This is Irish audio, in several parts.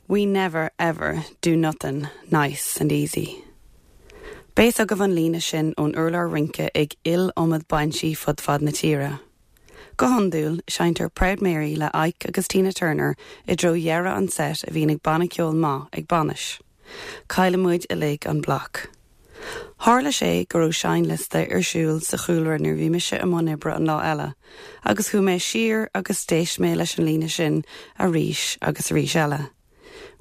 We never ever do nothin' nice and easy. Beidh a fhios agaibh an líne sin ón urlár rince ag iliomad bainsí fud fad na tíre. Go hiondúil, seinntear Proud Mary le Ike agus Tina Turner i dtreo dheireadh an set a bhíonn ag banna ceoil maith ag bainis. Cailleann muid uilig an bloc. Tharla sé go raibh seinnliosta ar siúl sa chúlra nuair a bhí mise i mbun oibre an lá eile, agus chuaigh mé siar agus d'éist mé leis an líne sin arís agus arís eile.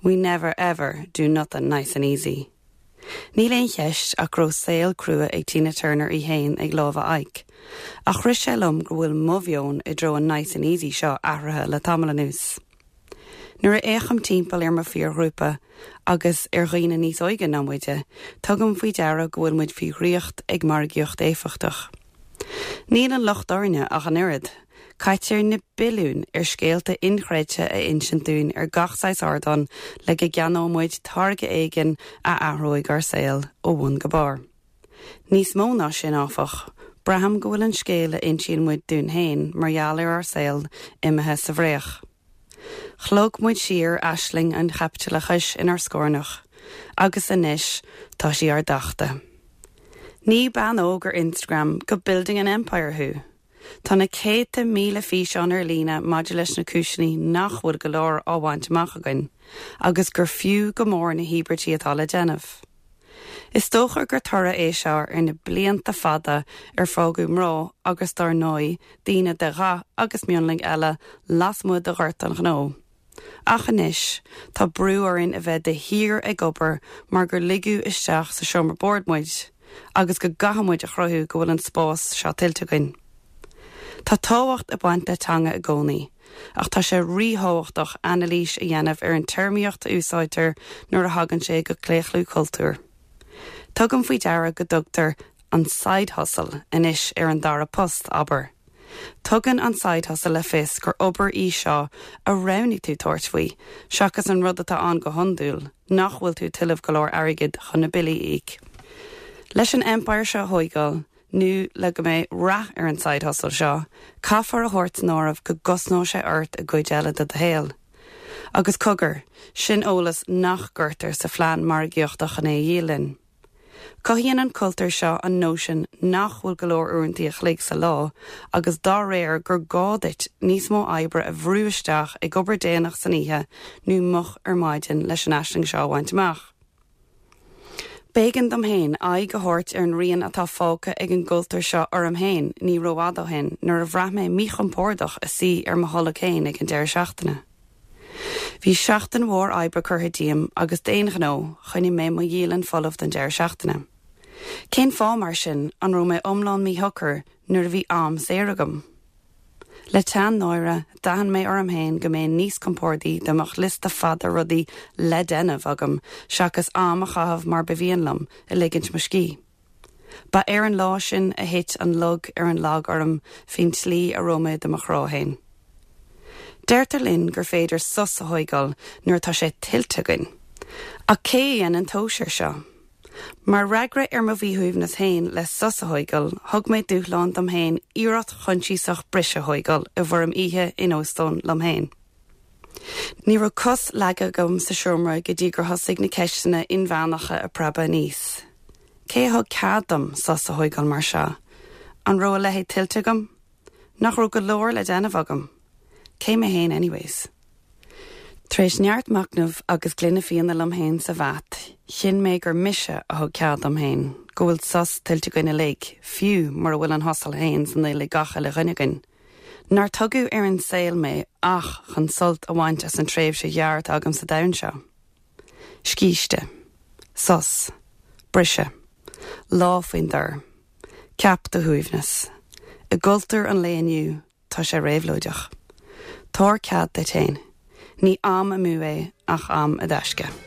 We never ever do nothin' nice and easy. Níl aon cheist ach go raibh saol crua ag Tina Turner í fhéin ag lámha Ike, ach rith sé liom go bhfuil mo mheon i dtreo an nice and easy seo athraithe le tamall anuas. Nuair a fhéachaim timpeall ar mo phiarghrúpa, agus ar dhaoine níos óige ná muide, tugaim faoi deara go bhfuil muid faoi dhraíocht ag margaíocht éifeachtach. Níl an locht orainne ach an oiread. Caitear na billiúin ar scéalta inchreidte a insint dúinn ar gach saghas ardán le go gceannóidh muid táirge éigin a athróidh ár saol ó bhun go barr. Níos mó ná sin, áfach, braithim go bhfuil an scéal a insíonn muid dúinn féin mar gheall ar ár saol imithe sa bhfraoch. Shlog muid siar aisling an chaipitileachais inár scornach, agus anois tá sí ár dtachtadh. Ní bean óg ar Instagram go building an empire thú! Tá na céadta míle físeán ar líne maidir leis na cúiseanna nach bhfuil go leor á bhaint amach againn, agus gur fiú go mór na híobairtí atá le déanamh. Is dócha gur toradh é seo ar na blianta fada ar fágadh mná agus dár ndóigh daoine de dhath agus mionlaigh eile lasmuigh de ghort an ghnó. Ach anois, tá brú orainn a bheith de shíor ag obair mar gur ligeadh isteach sa seomra boird muid agus go gcaithfidh muid a chruthú go bhfuil an spás seo tuillte againn. Tá tábhacht ag baint le teanga i gcónaí. Ach tá sé ríthábhachtach anailís a dhéanamh ar an téarmaíocht a úsáidtear nuair a thagann sé go claochlú cultúir. Tugaim faoi deara go dtugtar an side hustle anois ar an dara post, abair. Tugann an side hustle le fios gur obair í seo a roghnaigh tú tabhairt faoi, seachas an rud atá ann go hiondúil, nach bhfuil tú ag tuilleamh go leor airgid chun na billí a íoc. Leis an empire seo a thóigeáil, nó le go mbeidh rath ar an side hustle seo, caithfear a thabhairt san áireamh go gcosnóidh sé ort i gcuid eile de do shaol. Agus cogar, sin eolas nach gcuirtear sa phlean margaíochta chun é a dhíol linn. Cothaíonn an cultúr seo an nóisean nach bhfuil go leor uaireanta a chloig sa lá agus dá réir gur gá duit níos mó oibre a bhrú isteach ag obair déanach san oíche nó moch ar maidin leis an aisling seo a bhaint amach. B'éigean dom féin aghaidh a thabhairt ar an rian atá fágtha ag an gcultúr seo orm féin ní rófhada ó shin nuair a bhraith mé míchompordach i suí ar mo tholg féin ag an deireadh seachtaine. Bhí seachtain mhór oibre curtha díom agus d'aon ghnó, choinnigh mé mo dhialann folamh don deireadh seachtaine. Cén fáth, mar sin, an raibh mé iomlán míshocair nuair a bhí am saor agam? Le teann náire, d'aithin mé orm féin go mbeinn níos compordaí dá mbeadh liosta fada rudaí le déanamh agam seachas am a chaitheamh mar ba mhian liom, ag ligint mo scíth. Ba ar an lá sin a thit an lug ar an lag orm faoin tslí a raibh mé do mo chrá féin. Deirtear linn gur féidir sos a thóigeáil nuair atá sé tuillte againn. Ach cé a dhéanann tomhas air seo? Mar fhreagra ar mo mhíshuaimhneas féin le sos a thóigeáil, thug mé dúshlán dom féin iarracht choinsiasach briseadh a thóigeáil i bhfoirm oíche in óstán liom féin. Ní raibh cos leagtha agam sa seomra go dtí gur thosaigh na ceisteanna inmheánacha ag preabadh aníos. Cé a thug cead dom sos a thóigeáil mar seo? An raibh a leithéid tuillte agam? Nach raibh go leor le déanamh agam? Cé mé féin anyways? Tar éis neart machnaimh agus gloine fíona liom féin sa bhat, chinn mé gur mise a thug cead dom féin, go bhfuil sos tuillte againn uilig, fiú mura bhfuil an hustle féin san fhuil ag gach uile dhuine againn. Nár tugadh ar an saol mé ach chun sult a bhaint as an tréimhse ghearr atá agam sa domhan seo. Scíste. Sos. Briseadh. Lá faoin dtor. Ceap do shuaimhneas. I gcultúr an lae inniu, tá sé réabhlóideach. Tabhair cead duit féin. Ní am amú é ach am i dtaisce.